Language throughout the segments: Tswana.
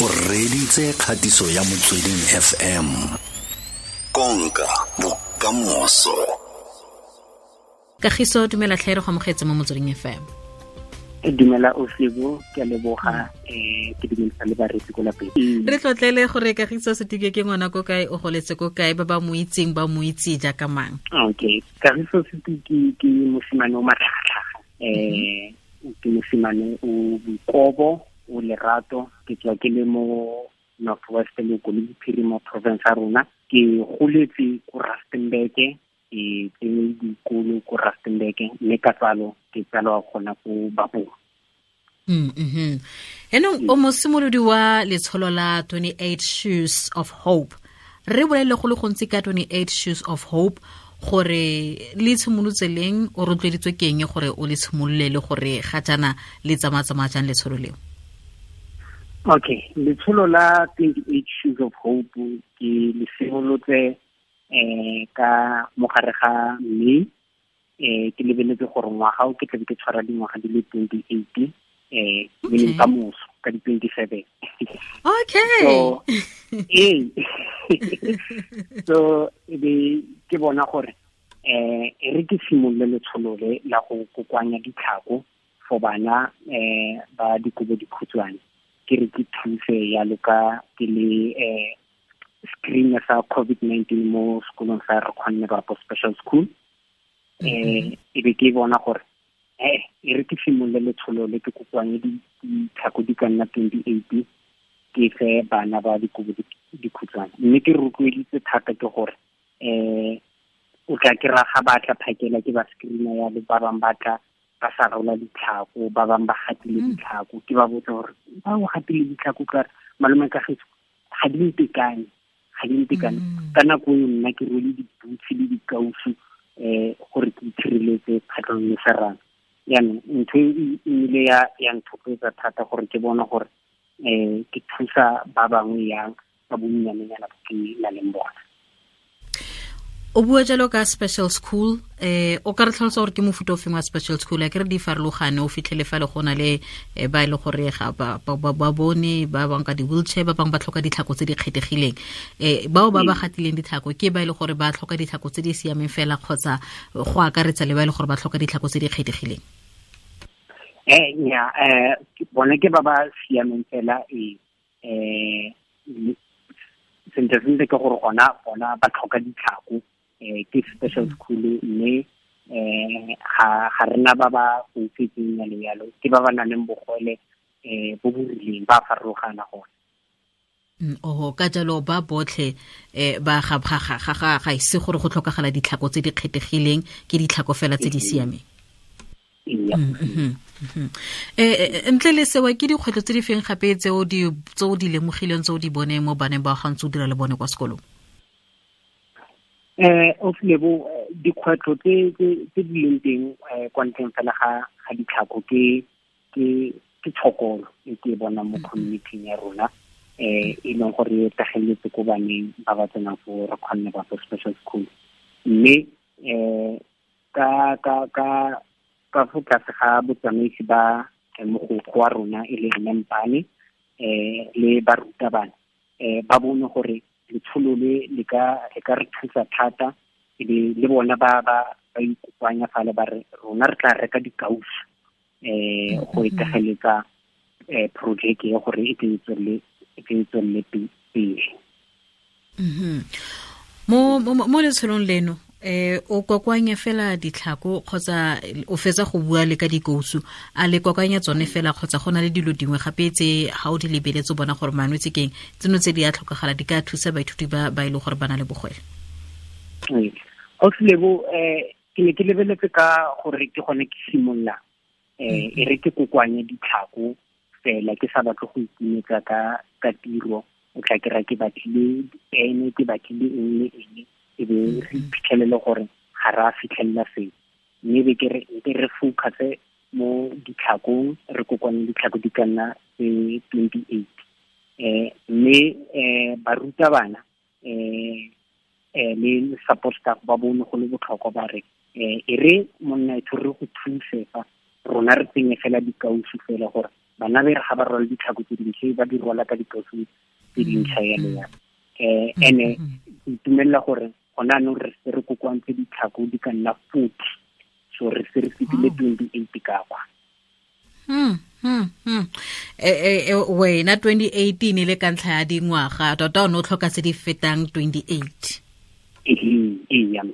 O reditse kgatiso ya Motsweding FM. Konka bokamoso. Kagiso, dumela tlhe, re go amogetse mo Motsweding FM. Dumela Osebo, ke a leboga, ke dumedisa le bareetsi ko lapeng. Re tlotlele gore Kagiso Setike ke ngwana ko kae, o goletse ko kae, ba ba mo itseng ba mo itse jaaka mang? Okay, Kagiso Setike ke mosimane o matlhagatlhaga, ke mosimane o boikobo, o lerato. Ke tswa ke le mo North West, le ko le Bophirima province ya rona. Ke goletse ko Rustenburg, ke tsene dikolo ko Rustenburg, mme ka tsalo ke tsalwa gona ko Bapong. Enong o mosimolodi wa letsholo la 28 Shoes of Hope. Re bolele go le gontsi ka 28 Shoes of Hope, gore le tshimolotse leng, o rotloeditswe ke eng gore o le tshimolole, le gore ga jaana le tsamaya-tsamaya jang letsholo leo? Okay, letsholo la 28 Shoes of Hope ke le simolotse ka mogare ga May. Ke lebeletse gore ngwaga o ke tlabe ke tshwara dingwaga di le 28, meaning ka moso ka di 27. So, so e be ke bona gore e re ke simolole letsholo le la go kokoanya ditlhako for bana ba dikobo dikhutshwane, ke re ke thuse yalo ka ke le screen sa COVID-19 mo sekolong sa Re Kgonne Bapo Special School. E be ke bona gore e re ke simolole letsholo le, ke kokoanye ditlhako di ka nna 28, ke fe bana ba dikobo dikhutshwane. Mme ke rotloeditse thata ke gore o tla ke ra ga ba tla phakela ke ba screen-a ya le ba bangwe ba tla ba sa rola ditlhako, ba bangwe ba gatile ditlhako. Ke ba botsa gore ba o gatile ditlhako ka re malome Kagiso ga di ntekane, ga di ntekane. Ka nako eo nna ke rwele di-boots le dikausu gore ke itshireletse kgatlhanong le serame. Jaanong ntho e nnile ya nthotloetsa thata gore ke bone gore ke thusa ba bangwe yang ka bonnyanenyana bo ke nang le bona. O bua jalo ka special school, o ka re tlhalosa gore ke mofuta o feng wa special school? A ke re di farologane, o fitlhele fa le go na le ba e le gore ga ba bone, ba bangwe ka di-wheelchair, ba bangwe ba tlhoka ditlhako tse di kgethegileng. Bao ba ba gatileng ditlhako ke ba e le gore ba tlhoka ditlhako tse di siameng fela, kgotsa go akaretsa le ba e le gore ba tlhoka ditlhako tse di kgethegileng? Nya, bone ke ba ba siameng fela, sentle sentle ke gore gona ba tlhoka ditlhako, ke special school, mme ga rena ba ba foufetseng yalo yalo, ke ba ba nang le bogole bo bo rileng, ba farologana gone. Oho, ka jalo ba botlhe ba ga, ga, ga, ga, ga, ga ise gore go tlhokagala ditlhako tse di kgethegileng, ke ditlhako fela tse di siameng. Ntle le sewa, ke dikgwetlho tse di feng gape tse o di lemogileng, tse o di boneng mo baneng ba ga ntse o dira le bone kwa sekolong? O Lebo, dikgwetlho tse di leng teng kwa ntleng fela ga ditlhako ke tshokolo e ke e bonang mo community-ing ya rona, e leng gore e tageletse ko baneng ba ba tsenang fo Re Kgonne Bapo Special School. Mme ka fo tlase ga botsamaisi ba mogokgo wa rona e le Mme Mpane, le barutabana, ba bone gore letsholo le le ka re thusa thata, e be le bona ba ikopanya fale ba re rona re tla reka dikausu go itegeletsa project e gore e tle e tle e tswelele pele. Mo letsholong leno, o kokoanya fela ditlhako kgotsa o fetsa go bua le ka dikousu, a le kokoanya tsone fela kgotsa go na le dilo dingwe gape tse ga o di lebeletse o bona gore manwetse keng tseno tse di a tlhokagala di ka thusa baithuti ba e leng gore ba na le bogwele? Ausi Lebo, ke ne ke lebeletse ka gore ke gone ke simolola, e re ke kokoanye ditlhako fela, ke sa batle go ikimetsa ka tiro. O tla kry-a ke batlile dipene, ke batlile eng le eng, e be re iphitlhelele gore ga re a fitlhelela seo. Mme be ke re, ke re focus mo ditlhakong, re kokoanye ditlhako di ka nna tse 28. Mme barutabana le support staff ba bone go le botlhokwa ba re, e re monna e re go thuse fa rona re tsenye fela dikausu fela gore Bana be re ga ba rwala ditlhako tse dintšha, ba di rwala ka dikausu tse dintšha yalo yalo. Ene ke itumelela gore gona anong re se re kokoantse ditlhako di ka nna 40, so re se re fetile 28 ka kwa. Wena 2018 le ka ntlha ya dingwaga tota o ne o tlhoka tse di fetang 28.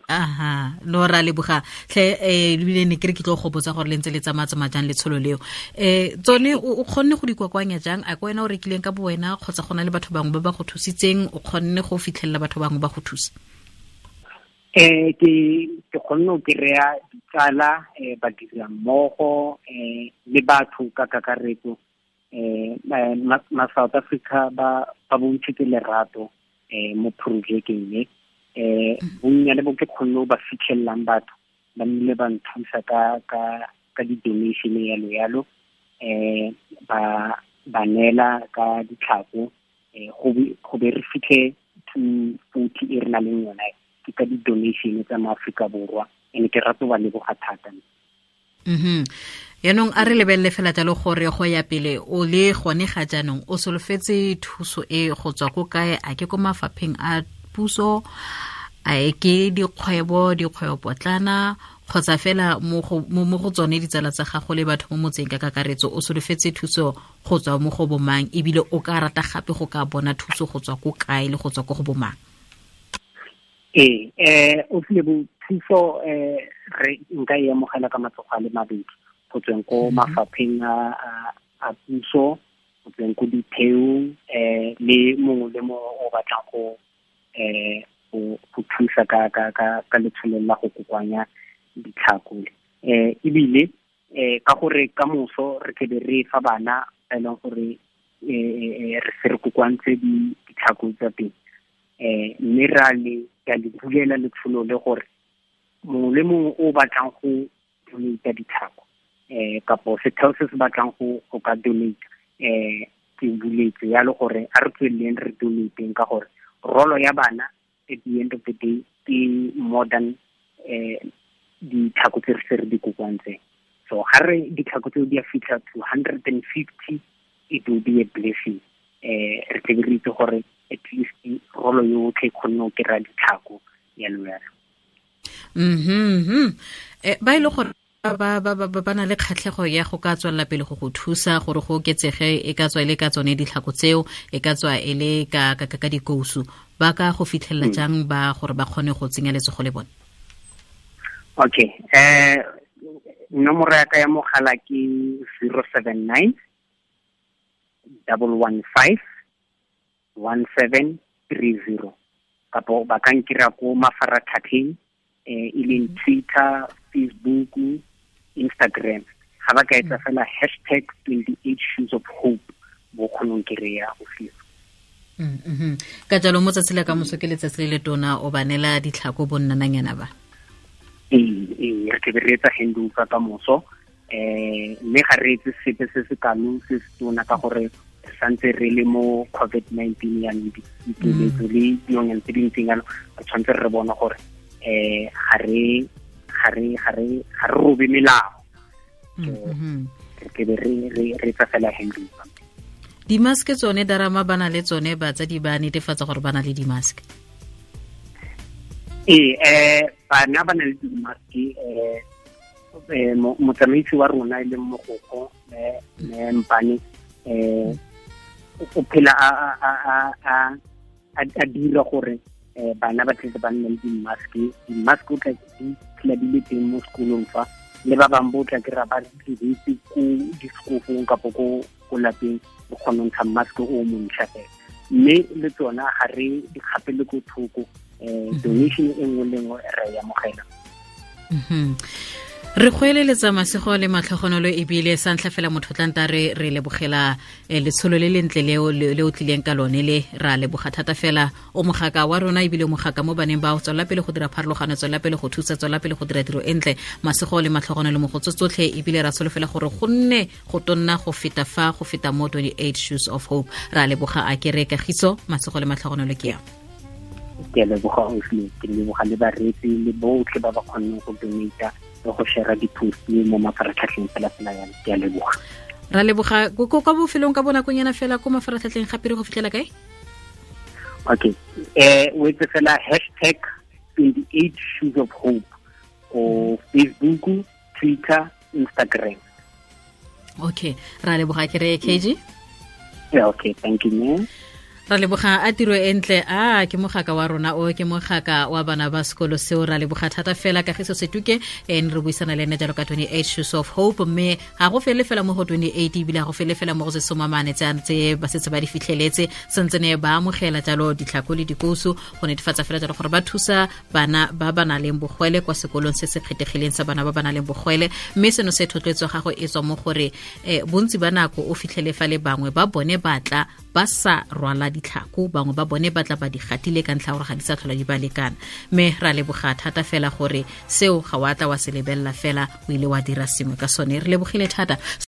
Aha, no ra leboga tlhe. Ebile ne ke re ke tlo go botsa gore le ntse le tsamaya jang letsholo leo. Tsone o kgonne go di kokoanya jang? A ke wena o rekileng ka bo wena, kgotsa go na le batho bangwe ba ba go thusitseng? O kgonne go fitlhelela batho bangwe ba go thusa? Ke kgonne go kry-a ditsala, badira mmogo, le batho ka kakaretso. Ma South Africa ba bontshitse lerato mo projecteng e. Bonnyane bo ke kgonne ba fitlhelelang batho ba nnile ba nthusa ka di-donation yalo yalo, ba neela ka ditlhako, go be re fitlhe 240 e re na leng yona ke ka di-donation tsa mo Aforika Borwa. Ene ke rata ba leboga thata. Yaanong a re lebelele fela jalo gore go ya pele o le gone ga jaanong o solofetse thuso e go tswa ko kae? A ke ko mafapheng a puso, a e ke dikgwebo potlana, kgotsa fela mo go tsone ditsala tsa gago le batho mo motseng ka kakaretso? O solofetse thuso go tswa mo go bomang, ebile o ka rata gape go ka bona thuso go tswa ko kae le go tswa ko go bomang? O file bo thuso, re nka e amogela ka matsogo a le mabedi, go tsweng ko mafapheng a puso, go tsweng ko ditheong, le mongwe le mongwe o batlang go thusa ka letsholo la go kokoanya ditlhako. Ebile ka gore ka moso re tlebe re fa bana ba e leng gore re se re kokoantse ditlhako tsa teng, mme ra le ka le bulela letsholo le gore mongwe le mongwe o batlang go donate ditlhako, kapo setheo se se batlang go ka donate, ke buletse yalo gore a re tsweleleng re donateng, ka gore rolo ya bana at the end of the day ke more than ditlhako tse re se re di kokoantseng. So ga re ditlhako tseo di a fitlha to 150, it will be a blessing. Re tlebe re itse gore at least rolo yotlhe e kgonne go kry-a ditlhako yalo yalo. Ba ile gore ba na le kgatlhego ya go ka tswelela pele go thusa gore go oketsege, e ka tswa e le ka tsone ditlhako tseo, e ka tswa e le ka dikousu, ba ka go fitlhelela jang ba gore ba kgone go tsenya letsogo le bone? Okay, nomoro ya ka ya mogala ke 079 115 1730, kapo ba ka nkira ko mafaratlhatlheng, e leng Twitter, Facebook, Instagram. Ga ba ka etsa fela hashtag 28 shoes of hope, bo kgonong kry-a go fiwa. Ka jalo mo tsatsi la ka moso ke letsatsi le le tona, o ba neela ditlhako bo nnananyana ba? Ee, re tlebe re etsa handover ka moso, mme ga re etse sepe se se kalo se se tona ka gore re santse re le mo COVID-19 yanong, dikeletso le dilonyana tse dintseng yalo, re tshwanetse re bona gore ga re robe melao. Re tlebe re etsa fela handover. Di-mask tsone darama ba na le tsone, batsadi ba netefatsa gore ba na le di-mask? Ee, bana ba na le di-mask. Motsamaisi wa rona e leng mogokgo Mpane, o phela a dira gore bana ba tletse ba nne le di-mask. Di-mask o tla di phela di le teng mo sekolong fa, le ba bangwe bo tla kry-a ba diretse ko disekofong kapo ko lapeng, o kgona go ntsha mask o montšha fela. Mme le tsona ga re di kgapele ko thoko, donation e nngwe le nngwe re e amogela. Re go eleletsa masego le matlhogonolo, ebile sa ntlha fela motho tlanta re lebogela letsholo le lentle leo le o tlileng ka lone le, ra leboga thata fela. O mogaka wa rona ebile o mogaka mo baneng ba, tswela pele go dira pharologano, tswela pele go thusa, tswela pele go dira tiro e ntle. Masego le matlhogonolo mo go tsotlhe, ebile ra solofela gore go nne go tonna go feta fa, go feta mo 28 Shoes of Hope. Ra leboga a kere kagiso, masego le matlhogonolo ke ya. Ke leboga Oslo, ke leboga le bareetsi le botlhe ba ba kgonneng go donate le go share di-post mo mafaratlhatlheng fela fela yana. Ke a leboga. Ra leboga kwa bofelong ka bonakonyana fela ko mafaratlhatlheng gape re go fitlhela kae? Okay, o etse fela hashtag 28 Shoes of Hope ko Facebook, Twitter, Instagram. Okay, ra leboga ke re KG. Yeah, okay, thank you man. Ra leboga a tiro e ntle a ke mogaka wa rona o ke mogaka wa bana ba sekolo seo. Ra leboga thata fela Kagiso Setuke, ne re buisana le ene jalo ka 28 Shoes of Hope, mme ga go fele fela mo go 28, ebile ga go fele fela mo go se somamane tse ba setse ba di fitlheletse, sentse ne ba amogela jalo ditlhako le dikousu go netefatsa fela jalo gore ba thusa bana ba ba nang le bogwele kwa sekolong se se kgethegileng sa bana ba ba nang le bogwele. Mme seno se thotloetso gago e tswa mo gore bontsi ba nako o fitlhele fa le bangwe ba bone batla ba sa rwala ditlhako, bangwe ba bone batla ba di gatile ka ntlha gore ga di sa tlhola di ba lekana. Mme ra leboga thata fela gore seo ga wa tla wa se lebella fela, o ile wa dira sengwe ka sone. Re lebogile thata.